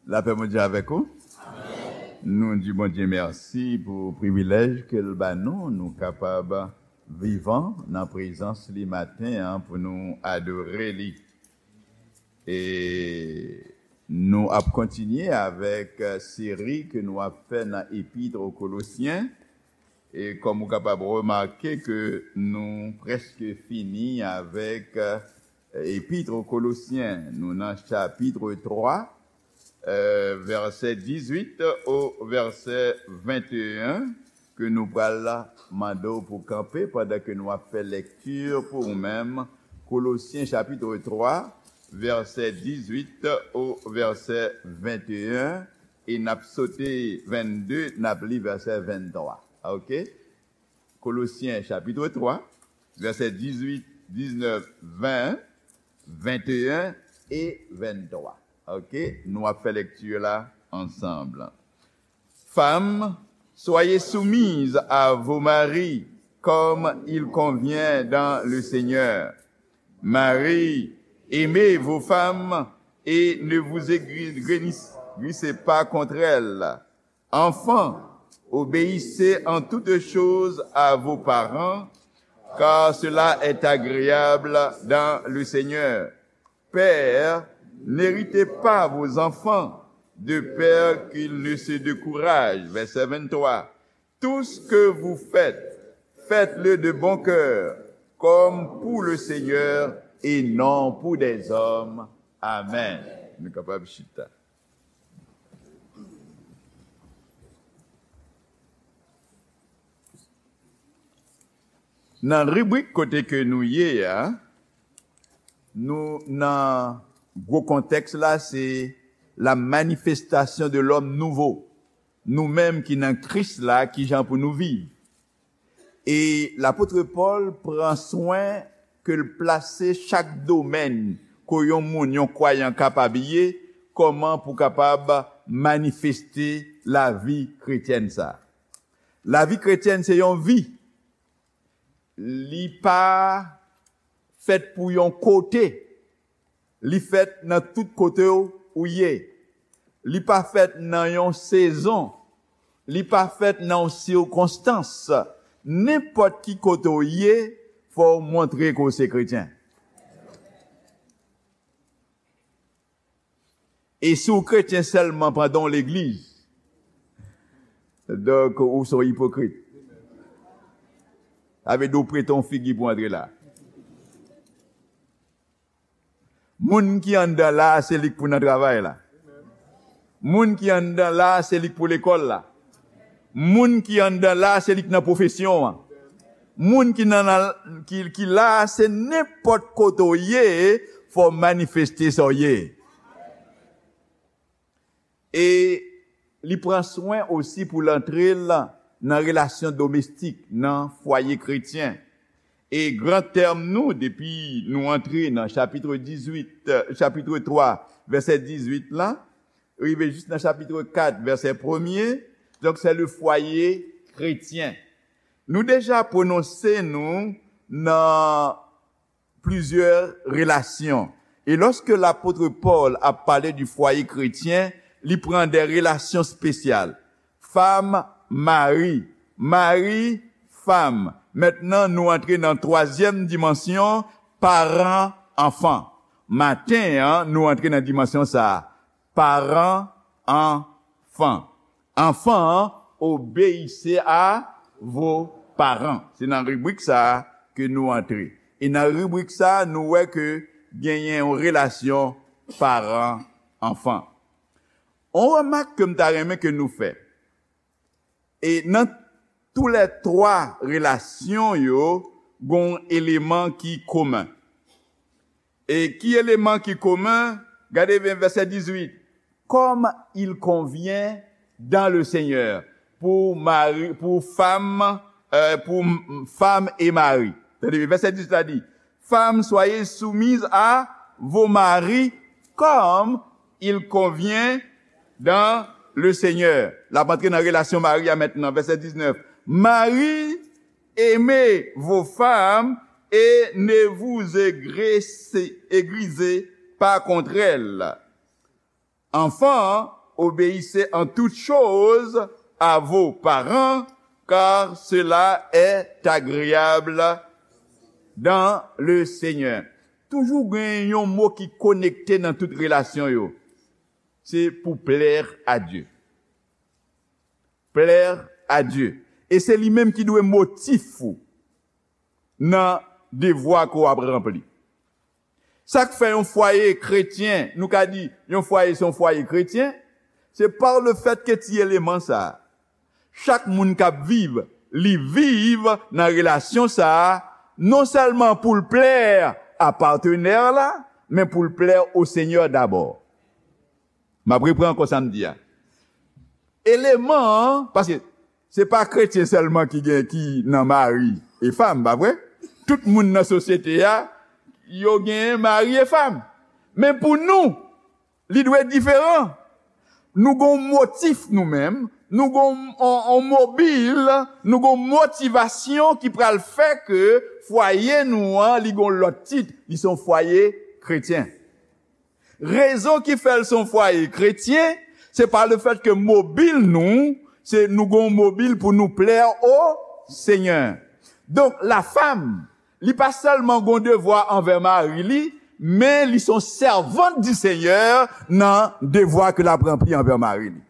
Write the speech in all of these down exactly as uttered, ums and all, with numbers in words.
Lapè Bondye avèk ou. Nou di Bondye mèsi pou privilèj ke l ba nou, nou kapab vivan nan prezans li maten an pou nou adore li. E nou ap kontinye avèk, eh, seri ke nou ap fè nan Epit o Kolosyen. E kòm ou kapab remake ke nou prèske fini avèk, eh, Epit o Kolosyen. Nou nan chapit twa, eh, vèsè dizuit o vèsè venteyen, ke nou pral mande w pou kanpe pandan ke nou ap fè lekti pou ou menm. Kolosyen chapit twa, vèsè dizuit o vèsè venteyen, e n ap sote vennde, n ap li vèsè venntwa. Oke? Kolosyen chapit twa, vèsè dizuit, diznèf, ven, venteyen e venntwa. Oke? Nou ap fè lekti la ansanm. Femmes, soyez soumises à vos maris, comme il convient dans le Seigneur. Maris, aimez vos femmes et ne vous aigrissez pas contre elles. Enfants, obéissez en toutes choses à vos parents, car cela est agréable dans le Seigneur. Pères, n'héritez pas vos enfants de peur qu'ils ne se découragent. Vèsè venntwa. Tout ce que vous faites, faites-le de bon cœur, comme pour le Seigneur et non pour des hommes. Amen. Nou kapab chita. Nan ribrik kote ke nou ye a, nou nan gwo kontèks la, se la manifestation de l'homme nouveau. Nou menm ki nan Kris la, kijan pou nou viv. E lapot Pòl pran swen ke l plase chak domèn ke yon moun, yon kwayan kapab ye, kòman pou kapab manifeste lavi kretyèn sa. Lavi kretyèn se yon vi. Li pa fèt pou yon kote. Li fèt nan tout kote w, ou ye. Li pa fèt nan yon sezon. Li pa fèt nan yon sikonstans. Nenpòt ki kote w ye, fò w montre ke w se kretyen. E si w kretyen sèlman pandan w legliz, donk, ou se yon ipokrit. Sa vle di w prete yon figi pou antre la. Moun ki anndan la a, se li k pou nan travay la. Moun ki anndan la a, se li k pou lekòl la. Moun ki anndan la a, se li k nan pwofesyon an. Moun ki nan, nan, ki, ki la a, se nenpòt kote w ye, fò w manifeste sa w ye. E li pran swen osi pou l antre l nan relasyon domestik, nan fwaye kretyen. E gran tèm nou, depi nou antre nan chapit dizuit, chapit twa, vèsè dizuit la, rive jis nan chapit kat, vèsè premye, donk, se le foyer chrétien. Nou deja pwononse nou nan plizyè relasyon. E lòske lapot Pòl ap pale di fwaye kretyen, li pran de relasyon espesyal. Fam, mari. Mari, fam. Mentnan, nou antre nan twazyèm dimansyon, paran, anfan. Maten an, nou antre nan dimansyon sa a. Paran, anfan. Enfants, obéissez à vos parents. Se nan ribrik sa a ke nou antre. E nan ribrik sa a, nou wè ke genyen yon relasyon paran-anfan. On remak ke m ta renmen ke nou fè. E nan toulètwa relasyon yo, gon eleman ki komen. E ki eleman ki komen? Gade byen vèsè dizuit. Comme il convient dans le Seigneur. Pou mari, pou fam, euh, pou m-, fam e mari. Tande byen, vèsè dizuit la di, Femmes, soyez soumises à vos maris comme il convient dans le Seigneur. L ap antre nan relasyon mari a mentnan, vèsè diznèf. Maris, aimez vos femmes et ne vous aigrissez, aigrisez pas contre elles. Enfants, obéissez en toutes choses à vos parents, car cela est agréable dans le Seigneur. Toujou gen yon mo ki konekte nan tout relasyon yo. Se pou plaire à Dieu. Plaire à Dieu. E se li menm ki dwe motif ou nan devwa ke w ap ranpli. Sa k fè yon fwaye kretyen, nou ka di yon fwaye se yon fwaye kretyen, se pa le fèt ke ti eleman sa a, chak moun k ap viv, li viv nan relasyon sa a, non sèlman pou l plè a patnè la, men pou l plè o Senyè dabò. M ap repran ankò sa m di a. Eleman an, paske se pa kretyen sèlman ki gen, ki nan mari e fanm, pa vre? Tout moun nan sosyete a, yo gen mari e fanm. Men pou nou, li dwe diferan. Nou gon motif nou menm, nou gon on, on mobil, nou gon motivasyon ki pral fè ke fwaye nou an, li gon lòt tit, li se yon fwaye kretyen. Rezon ki fè l se yon fwaye kretyen, se pa le fèt ke mobil nou, se nou gon mobil pou nou plè o Senyè. Donk, la femme, li pa sèlman gon devwa anvè mari li, men li se yon sèvant di Senyè nan devwa ke l ap ranpli anvè mari li.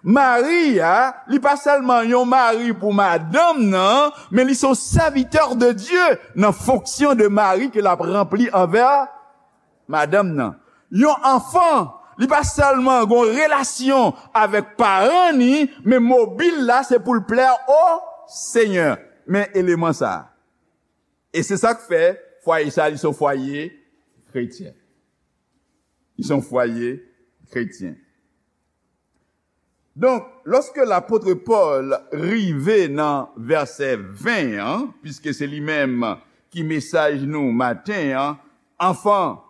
Mari a, li pa sèlman yon mari pou madanm nan, men li se yon serviteur de Dieu nan fonksyon de mari ke l ap ranpli anvè madanm nan. Yon anfan, li pa sèlman gon relasyon avèk paran ni, men mobil la se pou l plè o Senyè. Men eleman sa a. E se sa k fè fwaye sa, li se yon fwaye kretyen. Li se yon fwaye kretyen. Donk, lòske lapot Pòl rive nan vèsè ven an, piske se li menm ki mesaj nou maten an, Enfants,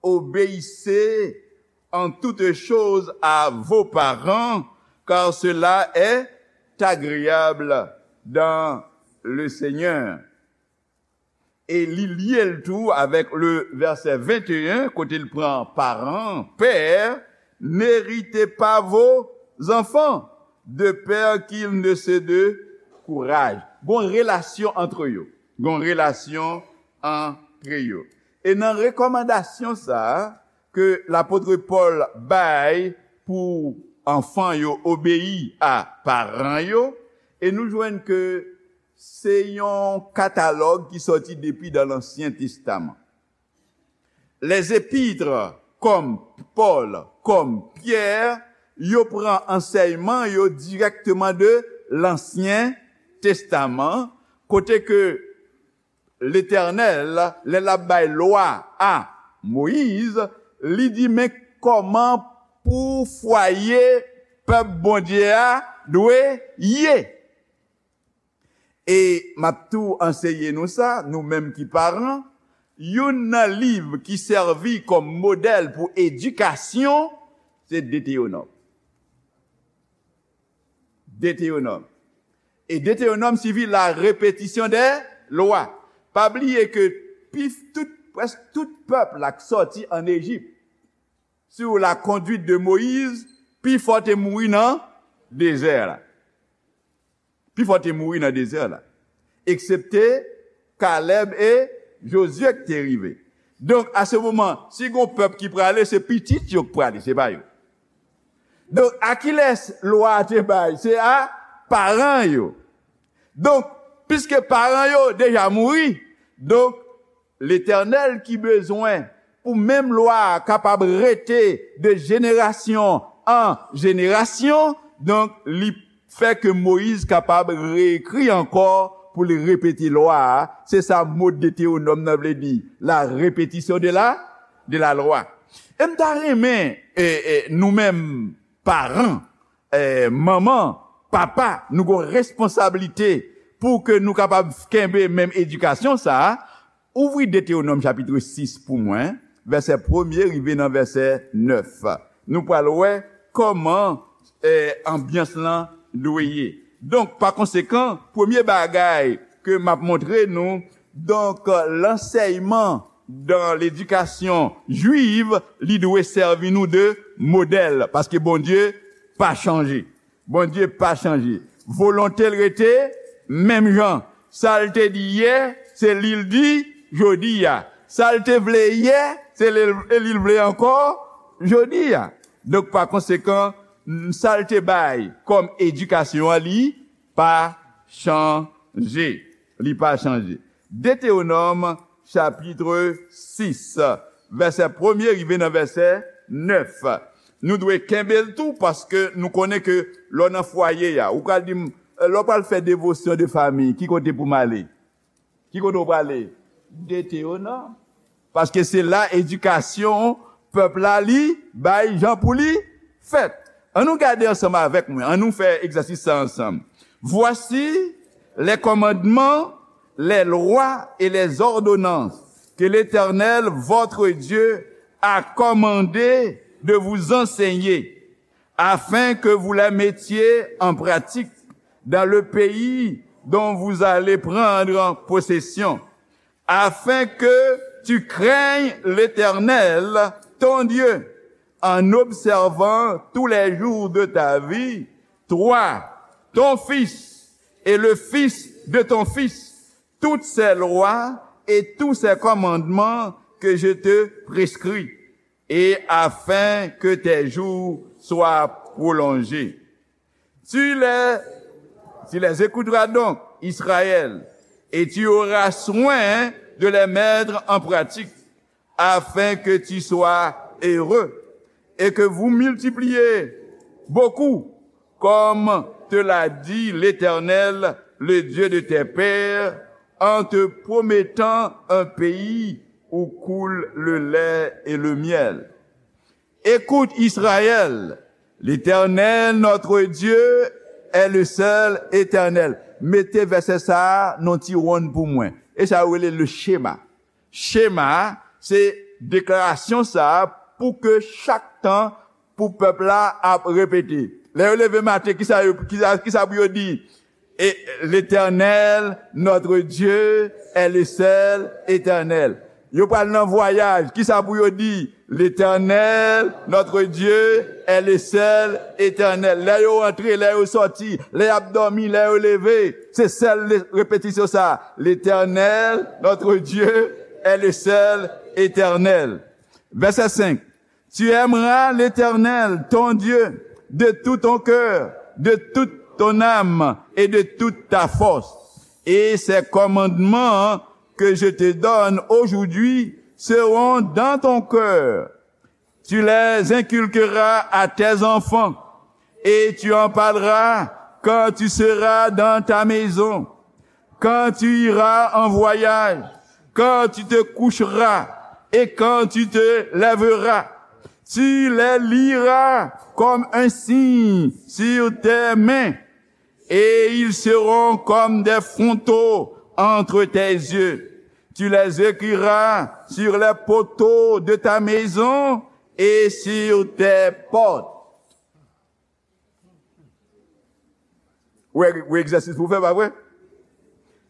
obéissez en toutes choses à vos parents, car cela est agréable dans le Seigneur. E li lye l tou avèk le vèsè venteyen, kote l pran paran, pè, n'héritez pas vos enfants, de peur qu'ils ne se découragent. Gon relasyon antre yo. Gon relasyon antre yo. E nan rekòmandasyon sa a ke lapot Pòl bay pou anfan yo obeyi a paran yo, e nou jwenn ke se yon katalòg ki sòti depi dan Lansyen Testaman. Les épîtres, kòm Pòl, kòm Pyè, yo pran ansèyman yo dirèkteman de Lansyen Testaman, kote ke Letènèl, lè l ap bay lwa a Moyiz, li di, men kòman pou fwaye pèp Bondye a dwe ye. E m ap tou anseye nou sa, nou menm ki paran, youn nan liv ki sèvi kòm modèl pou edikasyon, se Detewonòm. Detewonòm. E Detewonòm siyifi la répétition des lois. Pa bliye ke pi, tout, prèske tout pèp la k sòti ann Ejip, sous la conduite de Moïse, pifò te mouri nan dezè la. Pifò te mouri nan dezè la. Eksepte Kalèb e Jozye ki te rive. Donk, a se moman, si gon pèp ki prale, se pitit yo k prale, se pa yo. Donk, a kilès lwa a te bay? Se a paran yo. Donk, piske paran yo deja mouri, donk, Letènèl ki bezwen pou menm lwa a kapab rete de jenerasyon an jenerasyon, donk, li fè ke Moyiz kapab reekri ankò pou li repete lwa a. Se sa mo Detewonòm nan vle di, la répétition de la, de la loi. E m ta renmen, e, e, nou menm paran, e, manman, papa, nou gon responsablite pou ke nou kapab kenbe menm edikasyon sa a. Ouvri Detewonòm chapit sis pou mwen, vèsè premye rive nan vèsè nèf. Nou pral wè kòman, e, anbyans lan dwe ye. Donk, pa konsekan, premye bagay ke m ap montre nou, donk, lansèyman dan ledikasyon jwiv, li dwe sèvi nou de modèl, paske Bondye pa chanje. Bondye pa chanje. Volonte l rete menm jan. Sa l te di yè, se li l di jodi a. Sa l te vle yè, se li, li l vle ankò jodi a. Donk, pa konsekan, sa l te bay kòm edikasyon an, li pa chanje. Li pa chanje. Detewonòm, chapit sis, vèsè premye rive nan vèsè nèf. Nou dwe kenbe l tou, paske nou konnen ke lè w nan fwaye a, ou pral di m, lè w pral fè devosyon de fanmi, ki kote pou m ale? Ki kote w prale? Detewonòm. Paske se la edikasyon pèp la li bay jan pou li fèt. An nou gade ansanm avèk mwen, an nou fè egzèsis sa ansanm. Voici les commandements, les lois et les ordonnances que l'Éternel, votre Dieu, a commandé de vous enseigner, afin que vous les mettiez en pratique dans le pays dont vous allez prendre possession, afin que tu craignes l'Éternel, ton Dieu, en observant tous les jours de ta vie, toi, ton fils et le fils de ton fils, toutes ces lois et tous ces commandements que je te prescris, et afin que tes jours soient prolongés. Tu les, tu les écouteras donc, Israël, et tu auras soin de les mettre en pratique, afin que tu sois heureux et que vous multipliez beaucoup, comme te l'a dit l'Éternel, le Dieu de tes pères, en te promettant un pays où coule le lait et le miel. Écoute, Israël, l'Éternel, notre Dieu, est le seul Éternel. Mete vèsè sa a nan ti wonn pou mwen. E sa yo rele le chema. Chema, se deklarasyon sa a pou ke chak tan pou pèp la ap repete. Lè yo leve maten, kisa yo, kisa, kisa pou yo di? Et l'Éternel, notre Dieu, est le seul Éternel. Yo pral nan vwayaj, kisa pou yo di? L'Éternel, notre Dieu, est le seul Éternel. Lè yo antre, lè yo sòti, lè y ap dòmi, lè yo leve, se sèl le-, repetisyon sa. L'Éternel, notre Dieu, est le seul Éternel. Vèsè senk. Tu aimeras l'Éternel, ton Dieu, de tout ton cœur, de toute ton âme et de toute ta force. Et ces commandements que je te donne aujourd'hui seront dans ton cœur. Tu les inculqueras à tes enfants, et tu en parleras quand tu seras dans ta maison, quand tu iras en voyage, quand tu te coucheras et quand tu te lèveras. Tu les liras comme un signe sur tes mains, et ils seront comme des fronteaux entre tes yeux. Tu les écriras sur les poteaux de ta maison et sur tes portes. Ou wè, ou wè egzèsis pou fè, pa vre?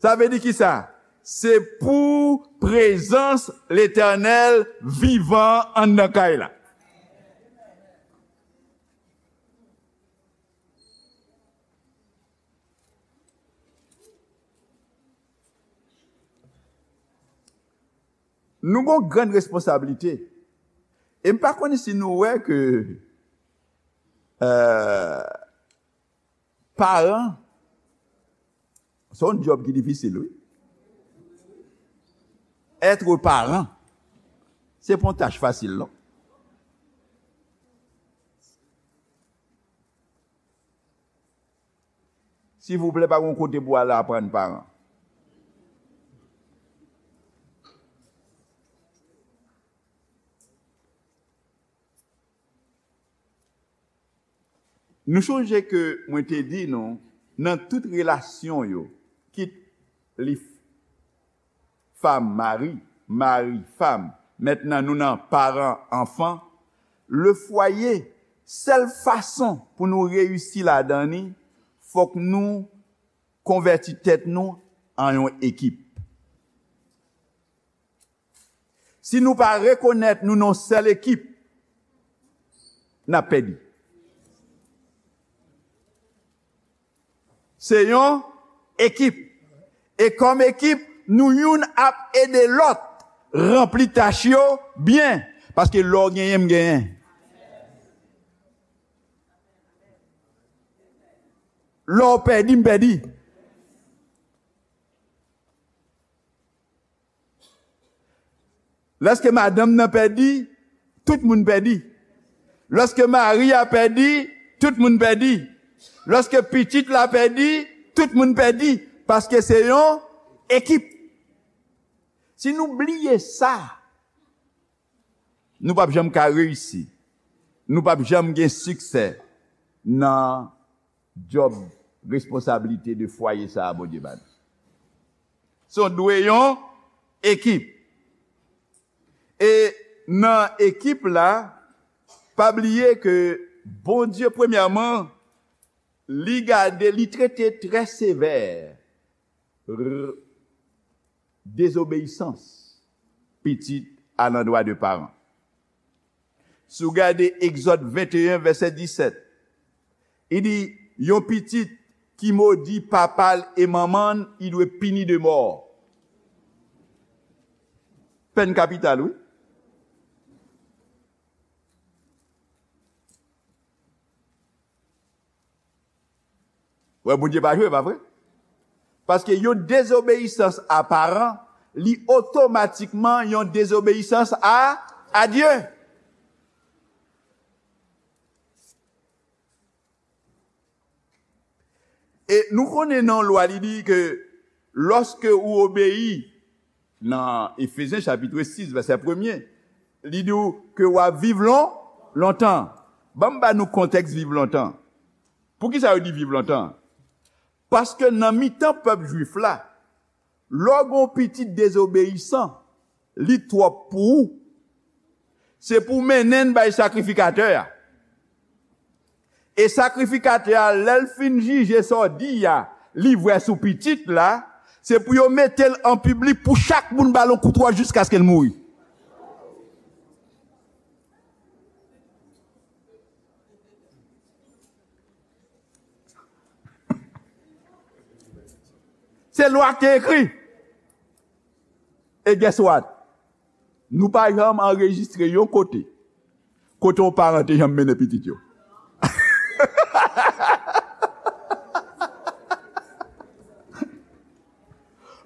Sa vle di kisa? Se pou prezans Letènèl vivan anndan kay la. Nou gon grann responsablite. E m pa konnen si nou wè ke, euh, paran, se yon djòb ki difisil, wi. Être parent, se pa yon tach fasil, non. Silvouplè, pa gen yon kote pou al aprann paran. Nou sonje ke mwen te di nou, nan tout relasyon yo, kit li fanm, mari, mari, fanm, mentnan nou nan paran, anfan, le foyer, sèl fason pou nou reyisi ladan li, fòk nou konvèti tèt nou an yon ekip. Si nou pa rekonèt nou nan yon sèl ekip, n ap pèdi. Se yon ekip. E kòm ekip, nou youn ap ede lòt ranpli tach yo byen. Paske lè w genyen, m genyen. Lè w pèdi, m pèdi. Lèske madanm nan pèdi, tout moun pèdi. Lèske mari a pèdi, tout moun pèdi. Lèske pitit la pèdi, tout moun pèdi. Paske se yon ekip. Si nou bliye sa, nou p ap janm ka reyisi. Nou p ap janm gen siksè nan djòb, responsablite de fwaye sa a Bondye ba nou. So, dwe yon ekip. E nan ekip la, pa bliye ke Bondye, premyèman, li gade, li trete trè sevè r-, dezobeyisans pitit alandwa de paran. Si w gade Egzòd venteyen, vèsè disèt, li di, yon pitit ki modi papa l e manman l, li dwe pini de mò. Pèn kapital, wi. Wè, Bondye pa jwe, pa vre? Paske yon dezobeyisans a paran, li otomatikman yon dezobeyisans a, a Dye. E nou konnen nan lwa, li di ke lòske ou obeyi, nan Efezyen chapit sis, vèsè premye, li di w ke w ap viv lon-, lontan. Ban m ba nou kontèks viv lontan. Poukisa yo di viv lontan? Paske nan mitan pèp jwif la, lè w gen yon pitit dezobeyisan, li twòp pou ou. Se pou w mennen l bay sakrifikatè a. E sakrifikatè a, lè l fin jije sa w di a, li vwè sou pitit la, se pou yo mete l an piblik pou chak moun ba l yon kout wòch jiskaske l mouri. Se lwa ki te ekri. E guess what? Nou pa janm anrejistre yon kote, kote yon paran te janm mennen pitit yo.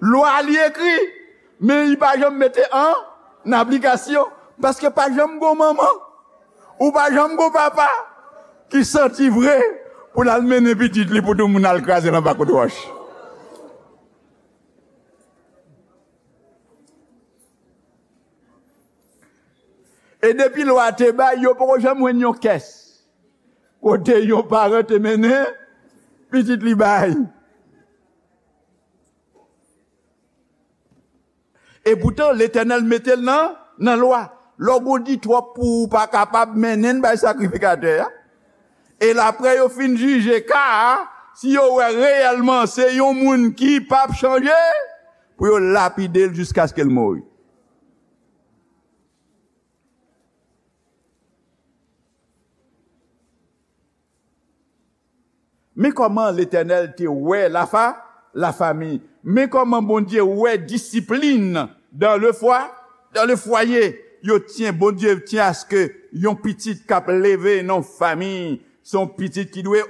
Lwa li ekri, men li pa janm mete an aplikasyon, paske pa janm gon manman, ou pa janm gon papa ki santi vre pou l al mennen pitit li pou tout moun al kraze l anba kout wòch. E depi lwa te bay, yo poko janm jwenn yon kès kote yon paran te mennen pitit li bay. E poutan, Letènèl mete l nan, nan lwa. Lè w di twòp pou ou pa kapab mennen l bay sakrifikatè a. E l apre yo fin jije ka a, si yo wè reyèlman se yon moun ki p ap chanje, pou yo lapide l jiskaske l mouri. Men kòman Letènèl te wè lafa-, lafami. Men kòman Bondye wè disiplin dans le foi-, dans le foyer. Yo tyen, Bondye tyen aske yon pitit k ap leve nan yon fanmi, se yon pitit ki dwe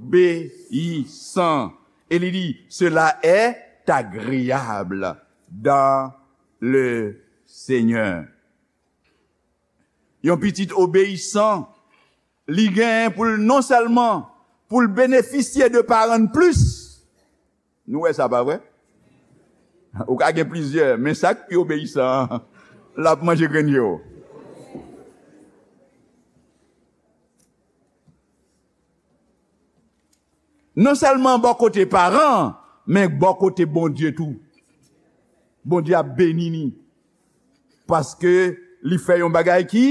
obeyisan. E li di, cela est agréable dans le Seigneur. Yon pitit obeyisan, li genyen pou l non sèlman pou l benefisye de paran l plis. Nou wè sa, pa vre? Ou ka gen plizyè, men sa k pi obeyisan an, l ap manje grenn je w. Non sèlman bò kote paran, men bò kote Bondye tou. Bondye ap beni ni. Paske li fè yon bagay ki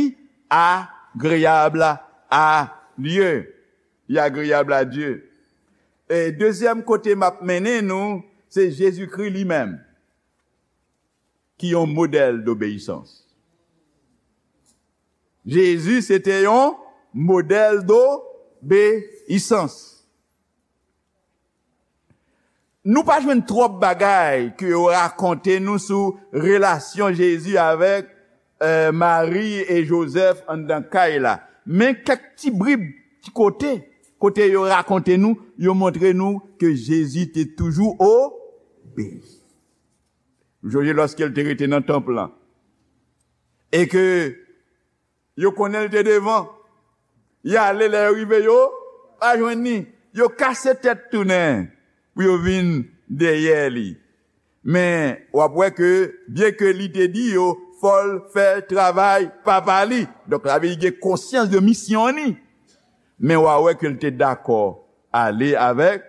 agreyab a Dye. Li agreyab a Dye. E dezyèm kote m ap mennen nou, se Jezikri li menm, ki yon modèl dobeyisans. Jezi se te yon Modèl dobeyisans. Nou pa jwenn twòp bagay ke yo rakonte nou sou relasyon Jezi avèk, eh, Mari e Jozèf anndan kay la. Men kèk ti brib, ti kote, kote yo rakonte nou, yo montre nou ke Jezi te toujou obeyi. Ou sonje lòske l te rete nan tanp lan. E ke yo konnen l te devan. Y ale, lè yo rive, yo pa jwenn li. Yo kase tèt tounen pou yo vin dèyè li. Men, w ap wè ke, byenke li te di yo, fò l fè travay papa li. Donk, sa vle di gen konsyans de misyon li. Men w a wè ke l te dakò ale avèk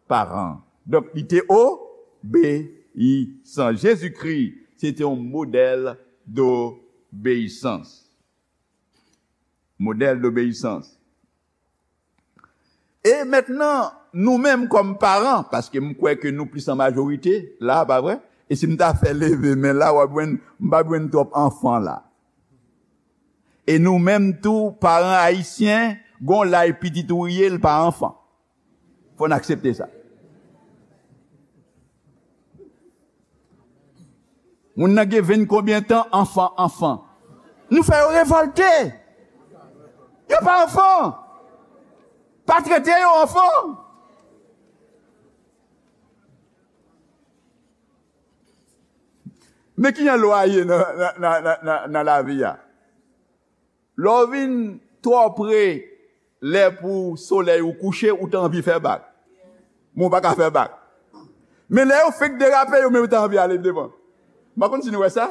paran. Donk, li te obeyisan. Jezikri, se te yon modèl dobeyisans. Modèl dobeyisans. E mentnan, nou menm kòm paran, paske m kwè ke nou plis an majorite la, pa vre? E si m ta fè leve men la, w ap jwenn, m p ap jwenn twòp anfan la. E nou menm tou, paran ayisyen, gon laj pitit ou ye, l pa anfan. Fò n aksepte sa. Moun nan gen ven konbyen tan, anfan, anfan. Nou fè yo revòlte. Yo pa anfan. Pa trete yo anfan. Men ki jan lwa ye nan, nan, nan, nan, nan, nan lavi a? Lè w vin twò pre lè pou solèy ou kouche, ou ta anvi fè bak. Men w pa ka fè bak. Men lè yo fenk derape, yo menm yo ta anvi ale devan. M pa konn si nou wè sa.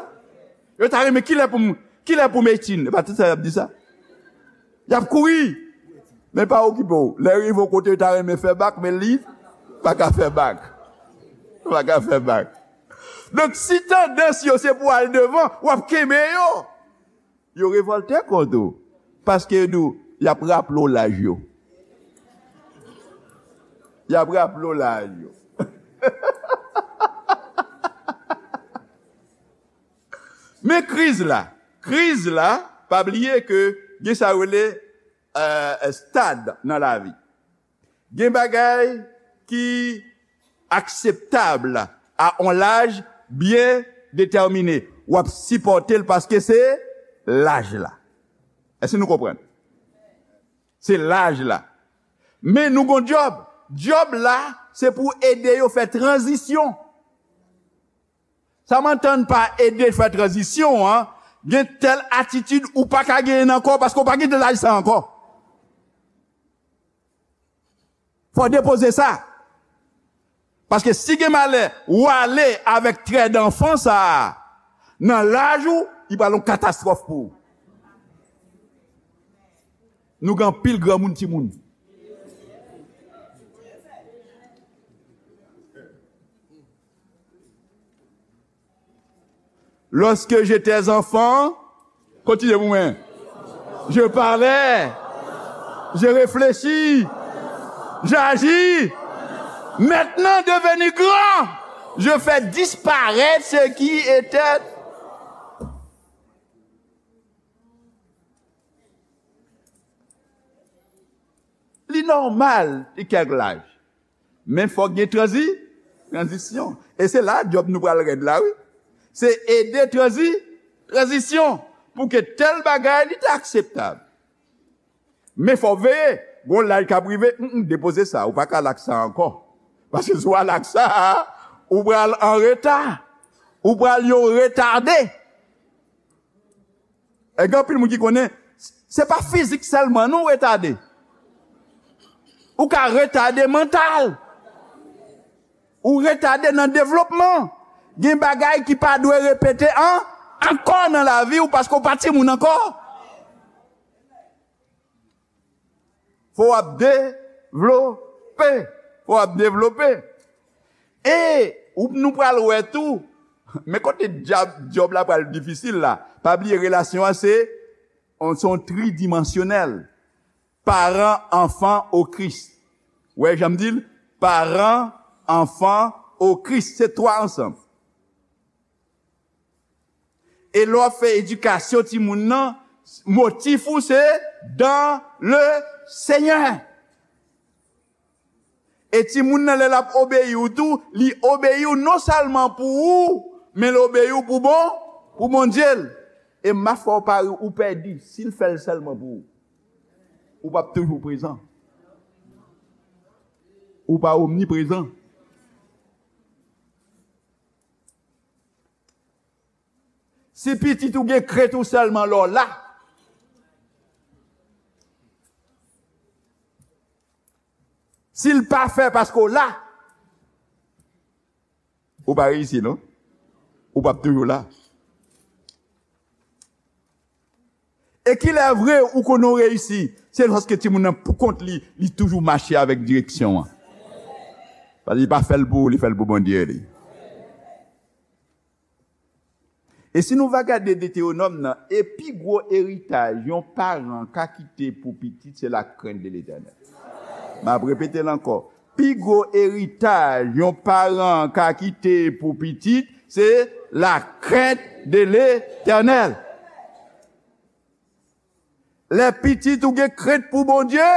Yo ta renmen kilè pou m, kilè pou m etin. E pa tout sa y ap di sa. Y ap kouri. Men pa okipe w. Lè rive yon kote, yo ta renmen fè bak, men li pa ka fè bak. Pa ka fè bak. Donk, si tandans yo se pou al devan, w ap kenbe yo. Yo revòlte kont ou. Paske yo di w, y ap raple w laj yo. Y ap raple w laj yo. Men kriz la. Kriz la, pa bliye ke gen sa yo rele, eh, stad nan lavi. Gen bagay ki akseptab a on laj byen detèmine. W ap sipòte l paske se laj la. Èske nou konprann? Se laj la. Men nou gon djòb. Djòb la, se pou ede yo fè tranzisyon. Sa m antann pa ede fè tranzisyon an, gen tèl atitid ou pa ka genyen nan kò w paske w pa gen laj sa ankò. Fò w depoze sa. Paske si gen malè, ou ale avèk trè danfan sa a, nan laj ou, li pral yon katastwòf pou ou. Nou gen anpil granmoun timoun. Lorsque j'étais enfant, continuez pour moi. Je parlais, je réfléchis, j'agis. Maintenant devenu grand, je fais disparaître ce qui était. Li nòmal, li kèk laj. Men fòk gen tranzi-, tranzisyon. E se la djòb nou pral rèd la, wi. Se ede tranzi-, tranzisyon. Pou ke tèl bagay, li te akseptab. Men fò w veye. Gon laj k ap rive, mm, mm, depoze sa. Ou pa ka al ak sa ankò. Paske si w al ak sa, ou pral an reta. Ou pral yon retade. E gen anpil moun ki konnen, se pa fizik sèlman non retade. Ou ka retade mantal. Ou retade nan devlopman. Gen bagay ki pa dwe repete an, ankò nan lavi w paske w pa timoun ankò. Fò w ap devlope. Fò w ap devlope. E ou, nou pral wè tou, men kote djab, djòb la pral difisil la. Pa bliye relasyon an se, on, se on tridimansyonèl. Paran, anfan, o Kris. Wè, jan m di l, paran, anfan, o Kris. Se twa ansanm. E lè w ap fè edikasyon timoun nan, Motif ou se dans le Seigneur. E timoun nan, lè l ap obeyi w tou, li obeyi w non sèlman pou ou, men l obeyi w pou bon, pou Bondye l. E m ap fè w pari, ou pèdi si l fè l sèlman pou ou. Ou p ap toujou prezan. Ou pa omniprezan. Si pitit ou gen krent ou sèlman lè w la, si l pa fè paske w la, ou pa reyisi, non? Ou p ap toujou la. E kilè vre ou konnen w reyisi? Se lòske timoun nan poukont li, li toujou mache avèk direksyon an. Paske li pa fè l pou ou, li fè l pou Bondye li. E si nou va gade Detewonòm nan, e pi gwo eritaj yon paran ka kite pou pitit, se la crainte de l'Éternel. M ap repete l ankò. Pi gwo eritaj yon paran ka kite pou pitit, se la crainte de l'Éternel. Lè pitit ou gen krent pou Bondye,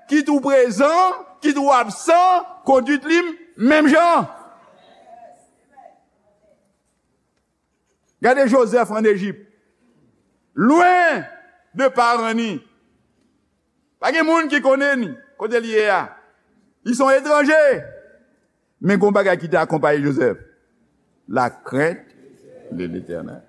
kit ou prezan, kit ou absan, kondwit li menm jan. Gade Jozèf ann Ejip. Lwen de paran ni. Pa gen moun ki konnen ni kote li ye a. Li se yon etranje. Men gon bagay ki te akonpaye Jozèf. La crainte de l'Éternel.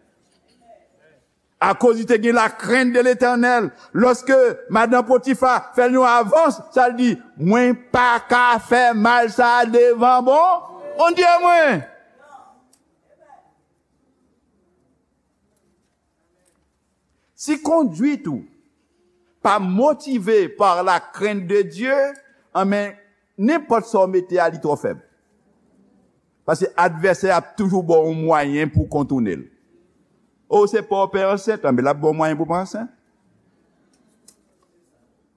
Akoz li te gen la crainte de l'Éternel, lòske madanm Potifa fè l yon avans, sa l di, mwen pa ka fè mal sa devan bon Bondye mwen. Si kondwit ou pa motive par la crainte de Dieu, anben, nenpòt sa w mete a, li twò fèb. Paske advèsè a ap toujou ba w yon mwayen pou w kontounen l. O, se pa w pè ansent, anben, l ap ba w mwayen pou w pa ansent.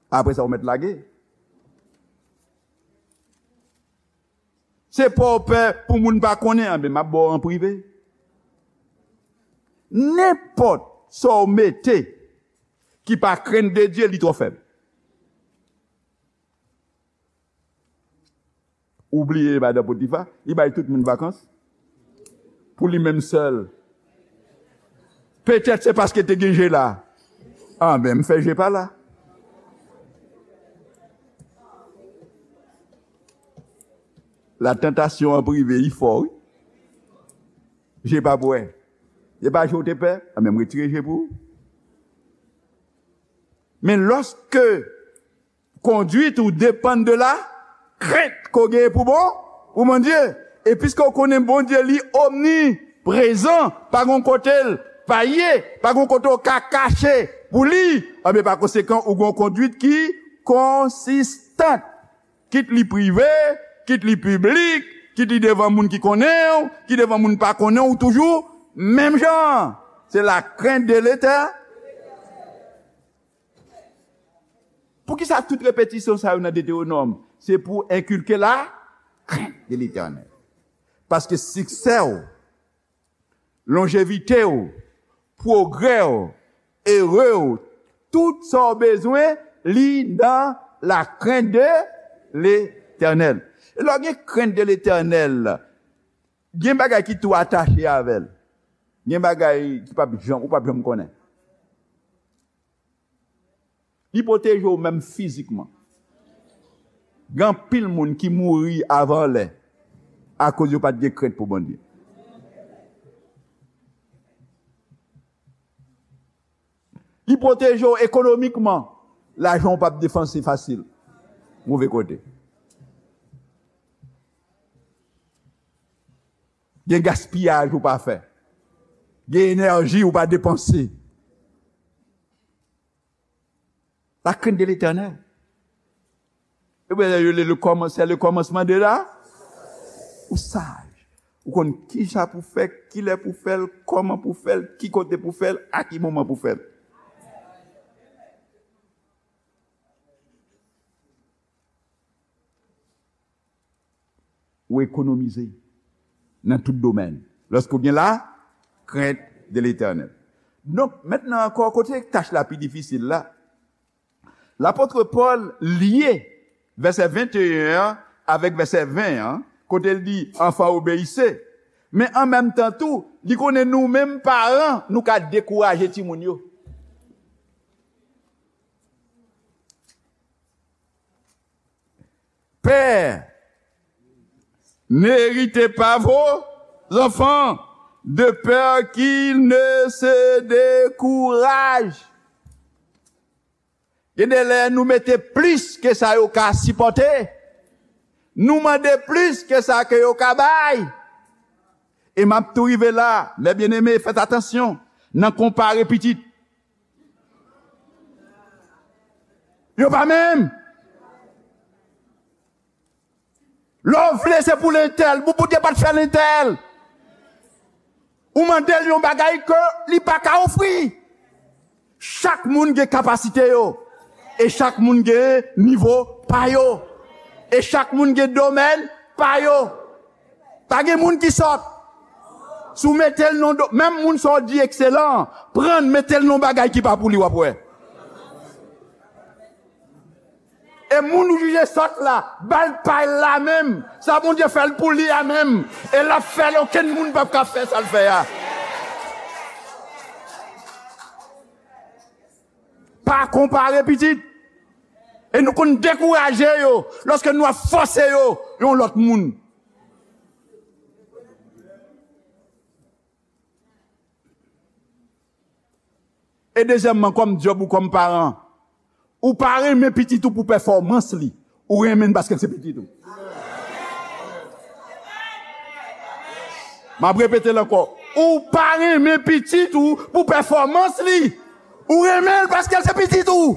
Apre sa, ou mèt lage. Se pa w pè pou moun pa konnen, anben, m ap ba w an prive. Nenpòt sa w mete ki pa crainte de Dieu, li twò fèb. Ou bliye madan Potifa, li bay tout moun vakans. Pou li menm sèl. Petèt se paske te gen je la. Anben, m fè je pa la. La tantasyon an prive, li fò, wi. Je pa pou wè. Se pa je w te pè, anben, m retire je pou ou. Men lòske kondwit ou depann de la krent ke w genyen pou bon, pou Bondye. E piske w konnen Bondye li omniprezan, pa gon kote l pa ye, pa gon kote w ka kache pou li, anben pa konsekan ou gon kondwit ki konsistan. Kit li prive, kit li piblik, kit li devan moun ki konnen w, kit devan moun pa konnen w, ou toujou menm jan. Se la crainte de l'Éternel. Poukisa tout repetisyon sa yo nan Detewonòm? Se pou enkilke la crainte de l'Éternel. Paske siksè w, lonjevite w, pwogrè w, ere w, tout sa w bezwen, li nan la crainte de l'Éternel. E lè w gen crainte de l'Éternel, gen bagay ki tou atache avè l. Gen bagay ki p ap janm, ou p ap janm konnen. Li pwoteje w menm fizikman. Gen anpil moun ki mouri avan lè akoz yo pa t gen krent pou Bondye. Li pwoteje w ekonomikman. Lajan w p ap depanse fasil. Move kote. Gen gaspiyaj ou pa fè. Gen enèji ou pa depanse. La crainte de l'Éternel. Ebyen, yo le, le kòman-, c'est le commencement de la. Ou saj. Ou konn kisa pou fè, kilè pou fè l, kòman pou fè l, ki kote pou fè l, a ki moman pou fè l. Ou ekonomize nan tout domèn. Lòske w gen la crainte de l'Éternel. Donk, mentnan ankò, kote tach la pi difisil la? Lapot Pòl lye vèsè venteyen an avèk vèsè ven an, kote l di, "Enfants, obéissez." Men an menm tan tou, li konnen nou menm paran, nou ka dekouraje timoun yo. Pères, n'irritez pas vos enfants, de peur qu'ils ne se découragent. Gen de lè nou mete plis ke sa yo ka sipòte. Nou mande plis ke sa ke yo ka bay. E m ap tou rive la, mes bien-aimés, fèt atansyon nan konpare pitit. Yo pa menm. Lè w vle se pou lentèl, bon, Bondye pa t fè lentèl. Ou mande l yon bagay ke li pa ka ofri. Chak moun gen kapasite yo. E chak moun gen nivo pa yo. E chak moun gen domèn pa yo. Pa gen moun ki sòt. Si w mete l nan do, menm moun sa w di ekselan, pran l, mete l nan bagay ki pa pou li, w ap wè. E moun ou jije sòt la, ba l pa l la menm. Sa Bondye fè l pou li a menm. E l ap fè l, okenn moun p ap ka fè sa l fè a. Pa konpare pitit. E nou konn dekouraje yo lòske nou ap fòse yo yon lòt moun. E dezyèmman, kòm djòb ou kòm paran, ou pa renmen pitit ou pou pèfòmans li, ou renmen l paske l se pitit ou. M ap repete l ankò. Ou pa renmen pitit ou pou pèfòmans li, ou renmen l paske l se pitit ou.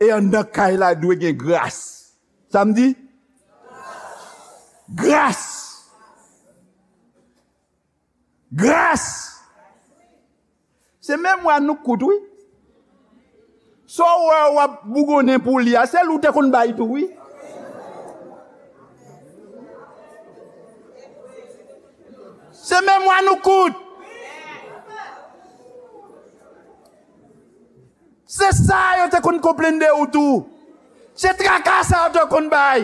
E anndan kay la dwe gen gras. Sa m di? Gras. Gras. Se memwa nou k kout, wi. Sa w wè w ap bougonnen pou li a, se li w te konn bay tou, wi. Se memwa nou k kout. Se sa yo te konn konplenn de ou tou. Se traka sa yo te konn bay.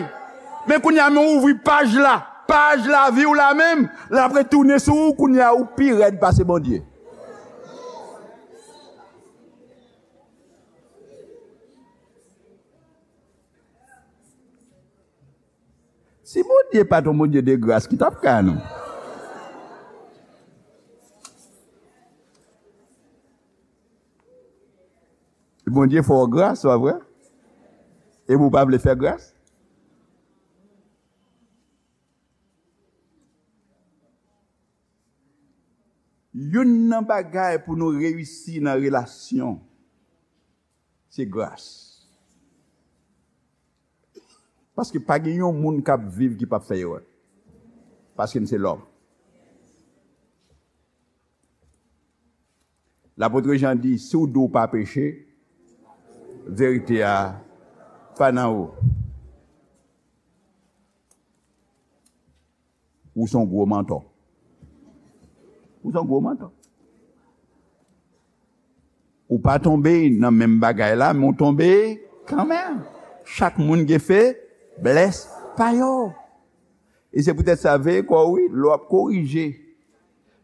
Men kounye a, men w ouvri paj la, paj lavi w la menm, l ap retounen sou ou, kounye a ou pi rèd pase Bondye. Si Bondye pa t yon Bondye de gras, ki t ap ka nou? Bondye fè w gras, pa vre? Epi w pa vle fè gras? Youn nan bagay pou nou reyisi nan relasyon, se gras. Paske pa gen yon moun k ap viv ki p ap fè erè. Paske n se lòm. Lapot Jan di, si w di w pa peche, verite a pa nan ou. Ou se yon gwo mantò. Ou se yon gwo mantò. Ou pa tonbe nan menm bagay la, men w tonbe kanmenm. Chak moun gen feblès pa yo. E se poutèt sa, veye kò w, wi, lè w ap korije,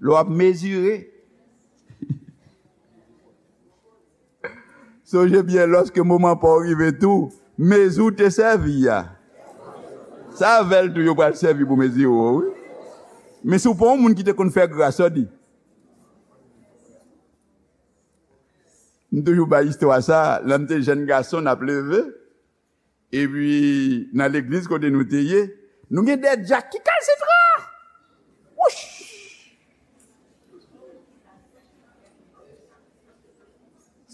lè w ap mezire. Sonje byen, lòske moman pa w rive tou, mezi w te sèvi a, se avè l tou yo pral sèvi pou mezire w, wi. Men si w pa yon moun ki te konn fè gras, sa w di? M toujou bay istwa sa, lè m te jèn gason, n ap leve, epi nan legliz kote nou te ye, nou gen de dyak ki kalsitran. Wouch!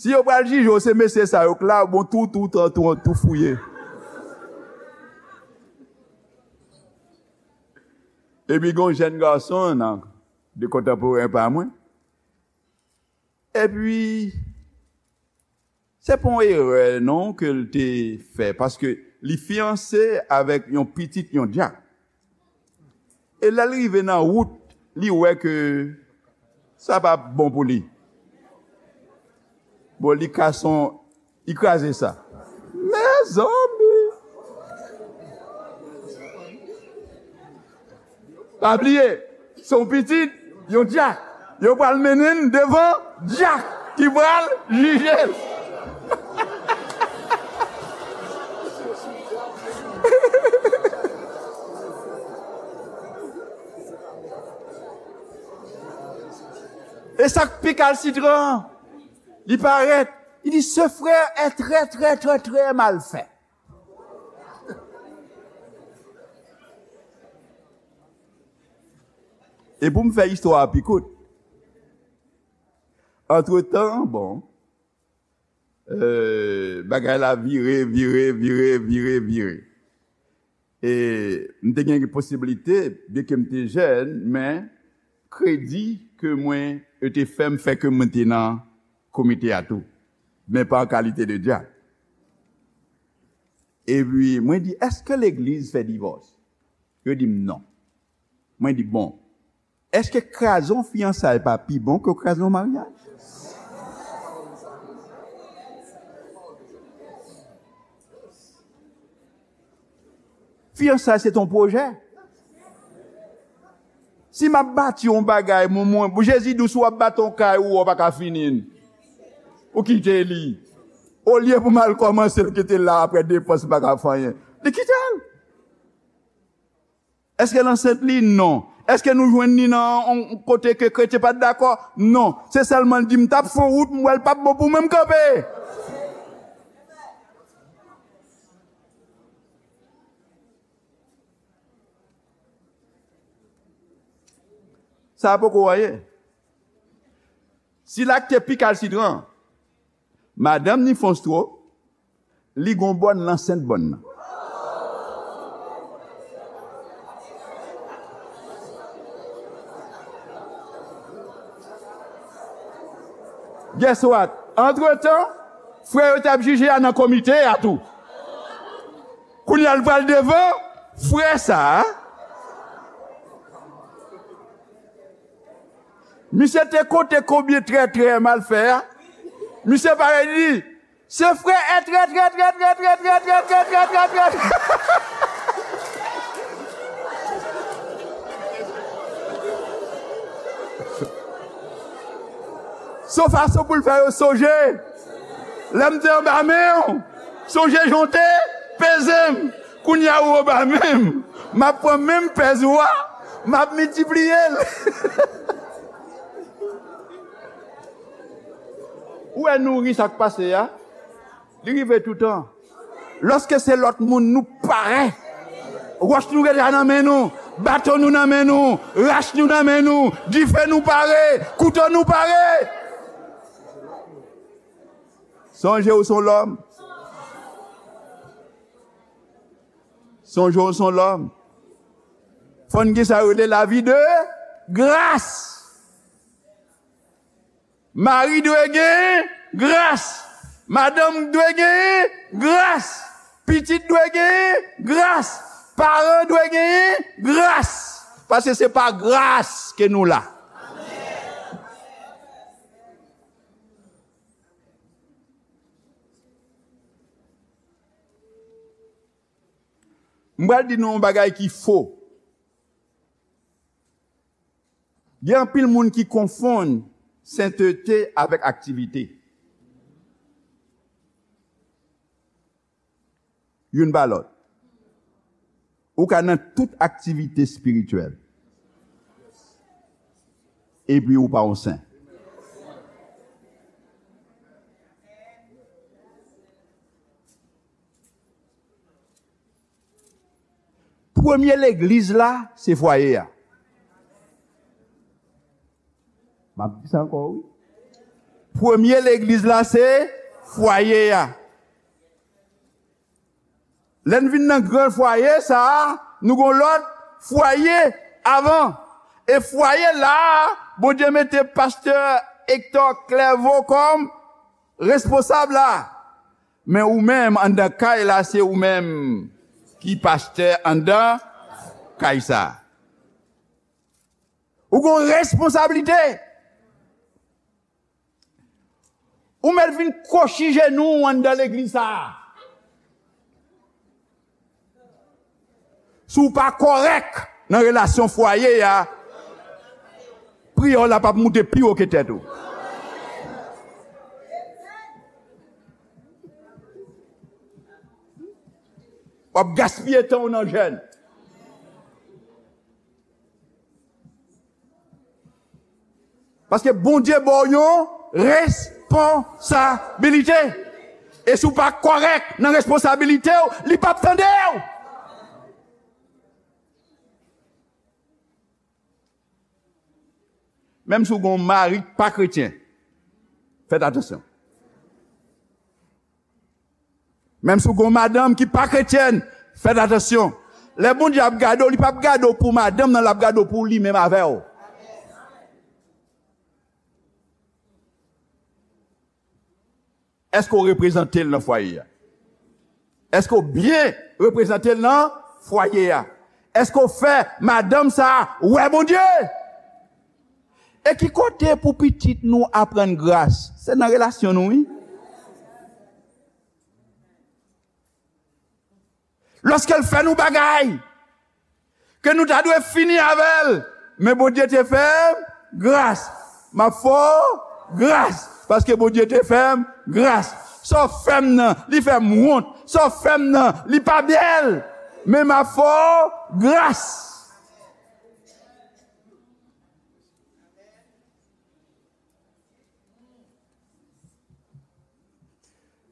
Si yo pral jije w, se mesye sa yo k la, bon, tou, tou, tou, tou, tou fouye. Epi gen yon jèn gason nan, de kontanporen pa mwen. Epi, Se pa yon erè non ke l te fè, paske li fiyanse avèk yon pitit yon dyak. E lè l rive nan wout, li wè ke sa p ap bon pou li. Bon, li kase yon, li kraze sa. Mezanmi! Pa bliye, se yon pitit yon dyak. Yo pral mennen l devan dyak ki pral jije l. E sa k pi kalsitran, li parèt, li di, ce frère est très, très, très, très mal fait. E pou m fè istwa a pi kout, antretan, bon, euh, bagay la vire, vire, vire, vire, vire. E m te gen posiblite, byenke m te jèn, men kredi ke mwen, yo te fè m fè ke mwen te nan komite a tou, men pa an kalite de dyak. Epi mwen di, èske legliz fè divòs? Yo di m non. Mwen di, bon, èske kraze yon fiyansay pa pi bon ke kraze yon maryaj? Fiyansay se t on pwojè. Si m ap bati yon bagay, mwen, mwen, Jezi di w, si w ap bati yon kay, ou wè w pa ka fini l, ou kite li. Olye pou m al kòmanse l, kite l la, apre depans, m pa ka fè anyen. Li kite l. Èske l ansent li? Non. Èske nou jwenn li nan yon kote ke kretyen pa t dakò? Non. Se sèlman l di m t ap fè yon wout, m wè l p ap bon pou mwen, m kanpe. Sa a poko anyen. Si l ak te pi kalsitran, madanm ni fè yon stroke, li gon bòn, l ansent bòn nan. Guess what? Antretan, frè yo t ap jije a nan komite a tou. Kounye a l pral devan frè sa a. Misye te konte konbyen trè, trè mal fè a. Misye parèt li di, se frè è trè, trè, trè. Se yon fason pou l fè yo sonje. Lè m te anba men w, sonje jan w te peze m. Kounye a ou anba men m. M ap pran menm pèz ou a, m ap miltipliye l. Ou wè nou ri sa k pase a? Li rive toutan. Lòske se lòt moun, nou pare. Wòch nou deja nan men nou, baton nou nan men nou, rach nou nan men nou, dife nou pare, kouto nou pare. Sonje w se yon lòm. Sonje w se yon lòm. Fò n gen sa yo rele lavi de gras. Mari dwe gen gras. Madanm dwe gen gras. Pitit dwe gen gras. Paran dwe gen gras. Paske se pa gras ke nou la. M pral di nou yon bagay ki fo. Gen anpil moun ki konfonn sentete avèk aktivite. Youn pa lòt. Ou ka nan tout aktivite espirityèl, epi ou pa yon sen. Premye legliz la, se fwaye a. M ap di sa ankò, wi. Premye legliz la, se fwaye a. Lè n vin nan gran fwaye sa a, nou gon lòt fwaye avan. E fwaye la a, Bondye mete pastè Hector Clairvaux kòm responsab la. Men ou menm anndan kay la, se ou menm ki pastè anndan kay sa. Ou gon responsablite. Ou mèt vin kwochi jenou w anndan legliz sa a. Si w pa kòrèk nan relasyon fwaye a, priyè w la p ap moute pi wo ke tèt ou. W ap gaspiye tan w nan jèn. Paske Bondye ba w yon responsabilite. E si w pa kòrèk nan responsabilite w, li p ap tande w. Menm si w gen yon mari k pa kretyen, fèt atansyon. Menm si w gen yon madanm ki pa kretyèn, fèt atansyon. Lè Bondye ap gade w, li p ap gade w pou madanm nan, l ap gade w pou li menm avè w. Èske w reprezante l nan fwaye a? Èske w byen reprezante l nan fwaye a? Èske w fè madanm sa a wè Bondye? E ki kote pou pitit nou aprann gras? Se nan relasyon nou, wi. Lòske l fè nou bagay ke nou ta dwe fini avè l, men Bondye te fè m gras. M ap fè w gras, paske Bondye te fè m gras. Sa w fè m nan, li fè m wont. Sa w fè m nan, li pa bèl, men m ap fè w gras.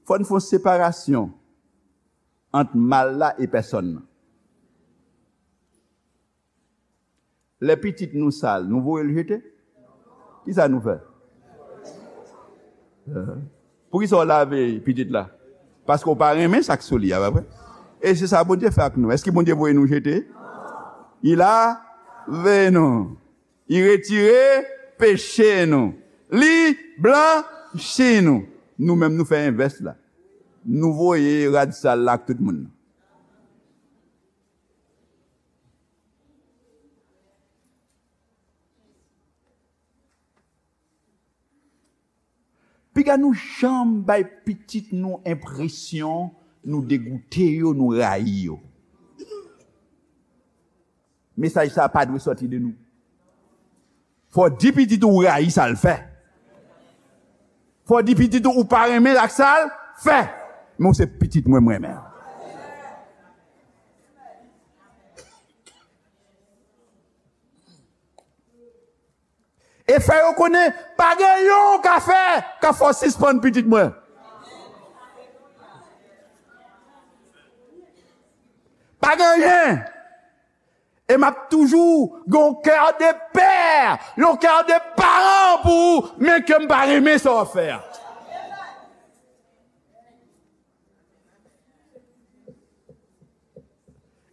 Fò n fè yon separasyon ant mal la e pèsòn nan. Lè pitit nou sal, nou voye l jete? Kisa nou fè? Poukisa w lave pitit la? Paske w pa renmen sa k sou li a, pa vre? E se sa Bondye fè ak nou. Èske Bondye voye nou jete? Li lave nou. Li retire peche nou. Li blanchi nou. Nou menm, nou fè envès la. Nou voye rad sal la ak tout moun nan. Piga nou janm bay pitit nou enpresyon nou degoute yo, nou rayi yo. Mesaj sa a pa dwe sòti de nou. Fò w di pitit ou w rayi sa l fè. Fò w di pitit ou ou pa renmen ak sa l fè. Men w se pitit mwen, mwen menm. E fè yo konnen pa gen yon w ka fè k ap fè w sispann pitit mwen. Pa gen anyen. E m ap toujou gen yon kè de pè, yon kè de paran pou ou, men ke m pa renmen sa w ap fè a.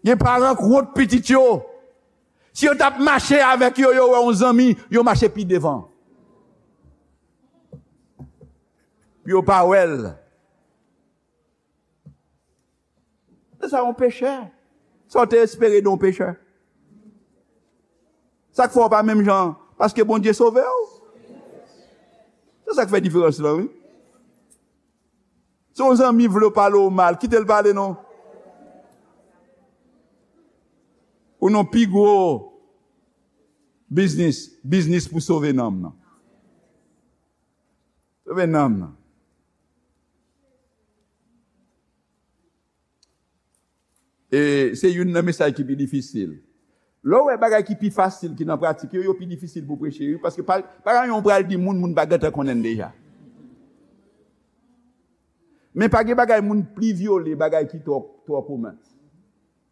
Gen paran k wont pitit yo. Si yo t ap mache avèk yo, yo wè yon zanmi, yo mache pi devan. Pou yo pa wè l. Se sa yon pechè. Sa w te espere de yon pechè? Sa k fè w pa menm jan? Paske Bondye sove w. Se sa k fè diferans lan, wi. Si yon zanmi vle w pale w mal, kite l pale non. Ou nan pi gwo biznis, biznis pou sove nanm nan. Sove nanm nan. E se youn nan mesaj ki pi difisil. Lè w wè bagay ki pi fasil ki nan pratik yo, yo pi difisil pou preche, wi, paske pa, pa gen anyen w pral di moun, moun pa gentan konnen l deja. Men pa gen bagay moun pli vyole, bagay ki twò, twò komen.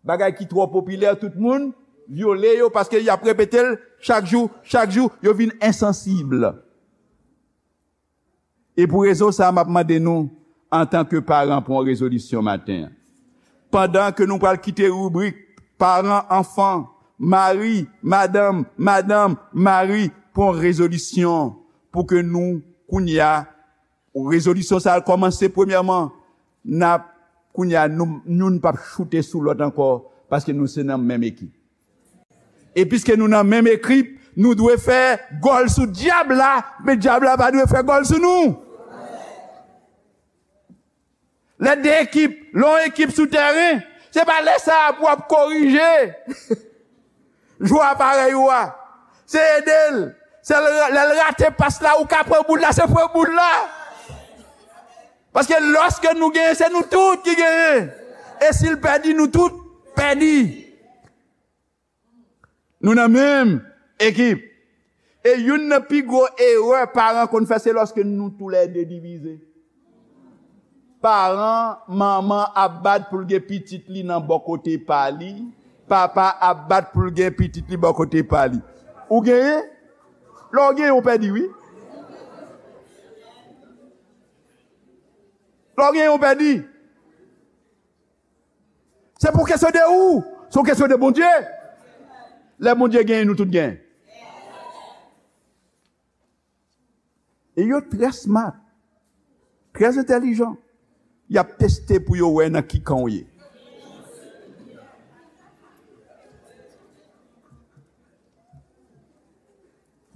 Bagay ki twò popilè, tout moun vyole yo, paske y ap repete l chak jou, chak jou, yo vin ensansib. E pou rezon sa a, m ap mande nou, antanke paran, pran yon rezolisyon maten an. Pandan ke nou pral kite ribrik paran, anfan, mari, madanm, madanm, mari, pran yon rezolisyon pou ke nou, kounye a, rezolisyon sa a kòmanse premyèman n ap, kounye a, nou, youn p ap choute sou lòt ankò, paske nou se nan menm ekip. E piske nou nan menm ekip, nou dwe fè gòl sou dyab la, men dyab la pa dwe fè gòl sou nou. Lè de ekip, lè yon ekip sou tèren, se pa lè sa a pou w ap korije jwè a parèy ou a. Se ede l. Se l, lè l rate pas la, ou ka pran boul la, se pran boul la. Paske lòske nou genyen, se nou tout ki genyen. E si l pèdi, nou tout pèdi. Nou nan menm ekip. E youn nan pi gwo erè paran konn fè, se lòske nou toulède divize. Paran, manman ap bat pou l gen pitit li nan bò kote pa li, papa ap bat pou l gen pitit li bò kote pa li. Ou genyen? Lè w genyen, ou pèdi, wi. Lè w genyen, ou pèdi. Se pou kesyon de ou, se yon kesyon de Bondye. Lè Bondye genyen, nou tout genyen. E yo trè smart, trè entèlijan. Y ap teste pou yo wè nan ki kan w ye.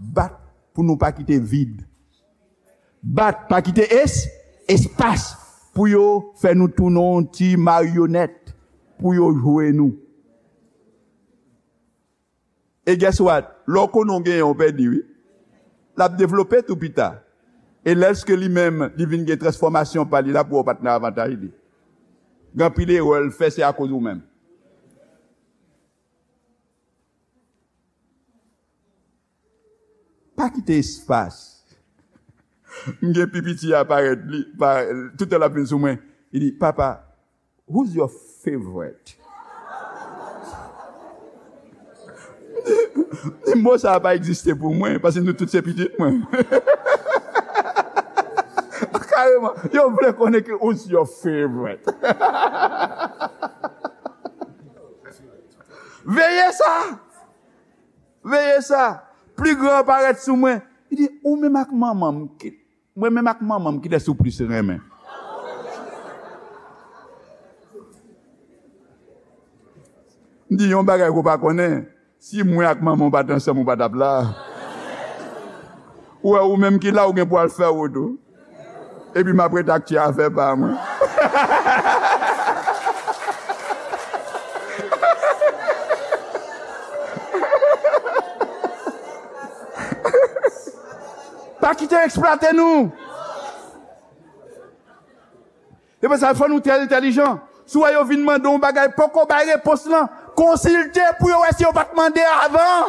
Bat pou nou pa kite vid. Bat, pa kite es, espas pou yo fè nou tounen yon ti maryonèt, pou yo jwe nou. E guess what? Lè w konnen w genyen, w pèdi, wi. L ap devlope tou pita. E lèske li menm, li vin gen transfòmasyon pa li, l ap wè w pa t nan avantaj li. Gen anpil erè l fè, se akoz ou menm. Pa kite espas. M gen pi piti a parèt, li, pa, toutan l ap vin sou mwen. Li di, "Papa, who's your favorite?" M di, "Mo sa a pa egziste pou mwen, paske nou tout se pitit mwen." Kareman, yo vle konnen ki, "Who's your favorite?" Veye sa! Veye sa! Pli gran an parèt sou mwen. Li di, "Ou menm ak manman m, ki, mwen menm ak manman m, kilès ou plis renmen?" M di, "Yon bagay ke w pa konnen, si mwen ak manman w pa t ansanm, ou pa t ap la. Ou wè, ou menm ki la, ou gen pou al fè wout ou. Epi m ap ret ak ti afè pa mwen." Pa kite yo eksplwate nou. Se pou sa fò nou trè entèlijan. Si w wè yo vin mande w yon bagay, poko bay repons lan, konsilte pou yo wè si yo pa t mande avan.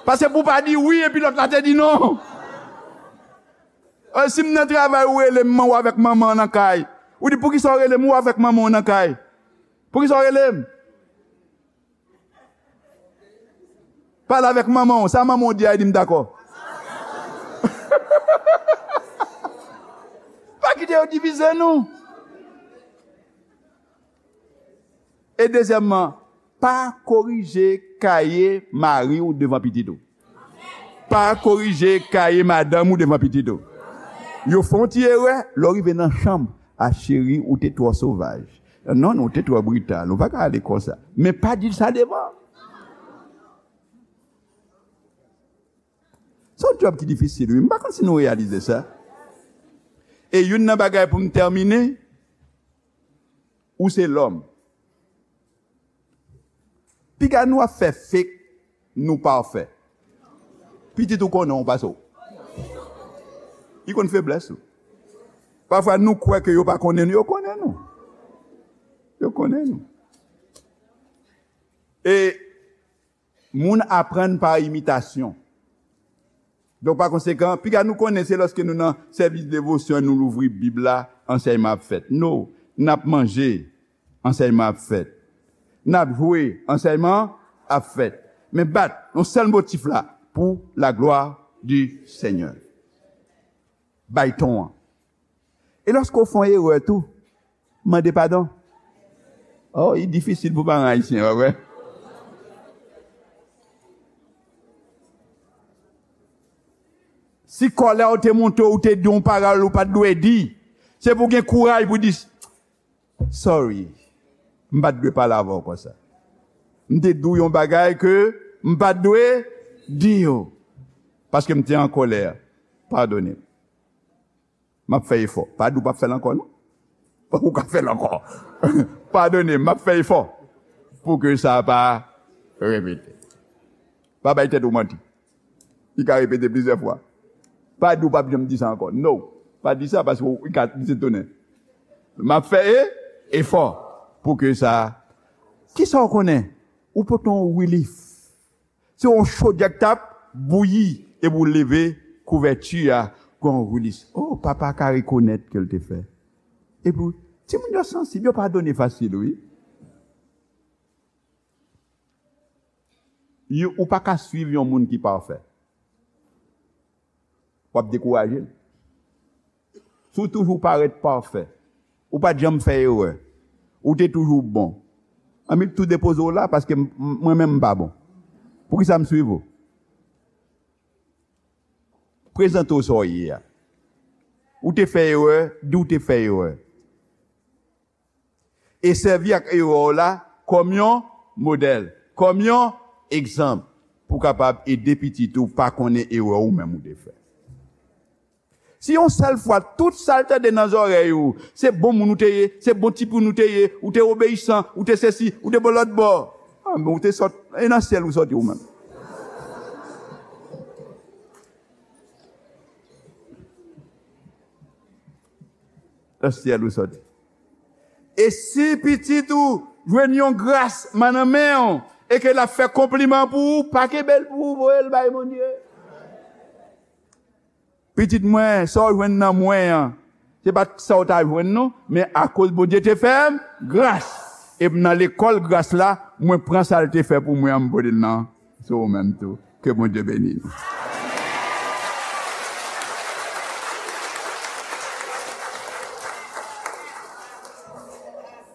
Paske pou w pa di wi epi lòt la te di non. Eh, si m nan travay, ou rele m, ou avèk manman w nan kay. Ou di, "Poukisa w rele m, ou avèk manman w nan kay? Poukisa w rele m?" Pale avèk manman w. Sa manman w di a, di m dakò. Pa kite yo divize nou. E dezyèmman, pa korije kaye mari w devan pitit ou. Pa korije kaye madanm ou devan pitit ou. Yo fè yon ti erè, lè w rive nan chanm, "A cheri, ou te twò sovaj. Non, non, ou te twò brital, ou pa ka ale konsa." Men pa di l sa devan. Se yon djòb ki difisil, wi. M pa konn si nou reyalize sa. E youn nan bagay pou m tèmine, ou se lòm. Piga nou ap fè fake, nou pafè. Pitit ou konnen w pase w. Li konn feblès ou. Pafwa nou kwè ke yo pa konnen nou, yo konnen nou. Yo konnen nou. E moun aprann pa imitasyon. Donk, pa konsekan, piga nou konnen se lòske nou nan sèvis devosyon, nou louvri Bib la, ansèyman ap fèt. No, n ap manje, ansèyman ap fèt. N ap jwe, ansèyman ap fèt. Men bat, yon sèl motif la, pour la gloire du Seigneur. Bay ton an. E lòske w fè yon erè tou, mande padon. Oh, li difisil pou paran ayisyen, pa vre? Si kòlè w te monte w, ou te di yon pawòl ou pa t dwe di, Se pou w gen kouraj pou w di, "Sorry, m pa t dwe pale avè w konsa. M te di w yon bagay ke m pa t dwe di w. Paske m te an kòlè. Padone m. M ap fè efò." Pa di w p ap fè l ankò, non. Ou ka fè l ankò. "Padone m, m ap fè efò pou ke sa pa repete." Pa bay tèt ou manti. Li ka repete plizyè fwa. Pa di w p ap janm di sa ankò. No. Pa di sa paske w ka di se tounen. "M ap fè e, efò pou ke sa." Kisa w konnen? Ou pote yon relief. Se yon chodyè k t ap bouyi epi w leve kouvèti a, gon relief. Oh, papa ka rekonèt ke l te fè. Epi, timoun yo sansib, yo padone fasil, wi. Yo, ou pa ka swiv yon moun ki pafè. W ap dekouraje l. Si w toujou parèt pafè, ou pa t janm fè erè, ou te toujou bon, ann m tou depoze w la paske m, m, mwen menm m pa bon. Poukisa m swiv ou? Prezante w sa w ye a. Ou te fè erè, di w te fè erè. E sèvi ak erè w la kòm yon modèl, kòm yon egzanp, pou w kapab ede pitit ou pa konnen erè ou menm ou te fè. Si yon sèl fwa, tout sa l tande nan zòrèy ou, se bon moun ou te ye, se bon timoun ou te ye, ou te obeyisan, ou te sesi, ou te bò lòt bò. Ah, men ou te sòt, e nan syèl ou sòti ou menm. Nan syèl ou sòti. E si pitit ou jwenn yon gras nan men w, e ke l ap fè konpliman pou ou, pa kenbe l pou ou, voye l bay Bondye. Pitit mwen, sa w jwenn nan mwen an, se pa t sa w ta jwenn non, men akoz Bondye te fè m gras, e m nan lekòl gras la, mwen pran sa l te fè pou mwen an, m pote l nan sou ou menm tou. Ke Bondye beni nou.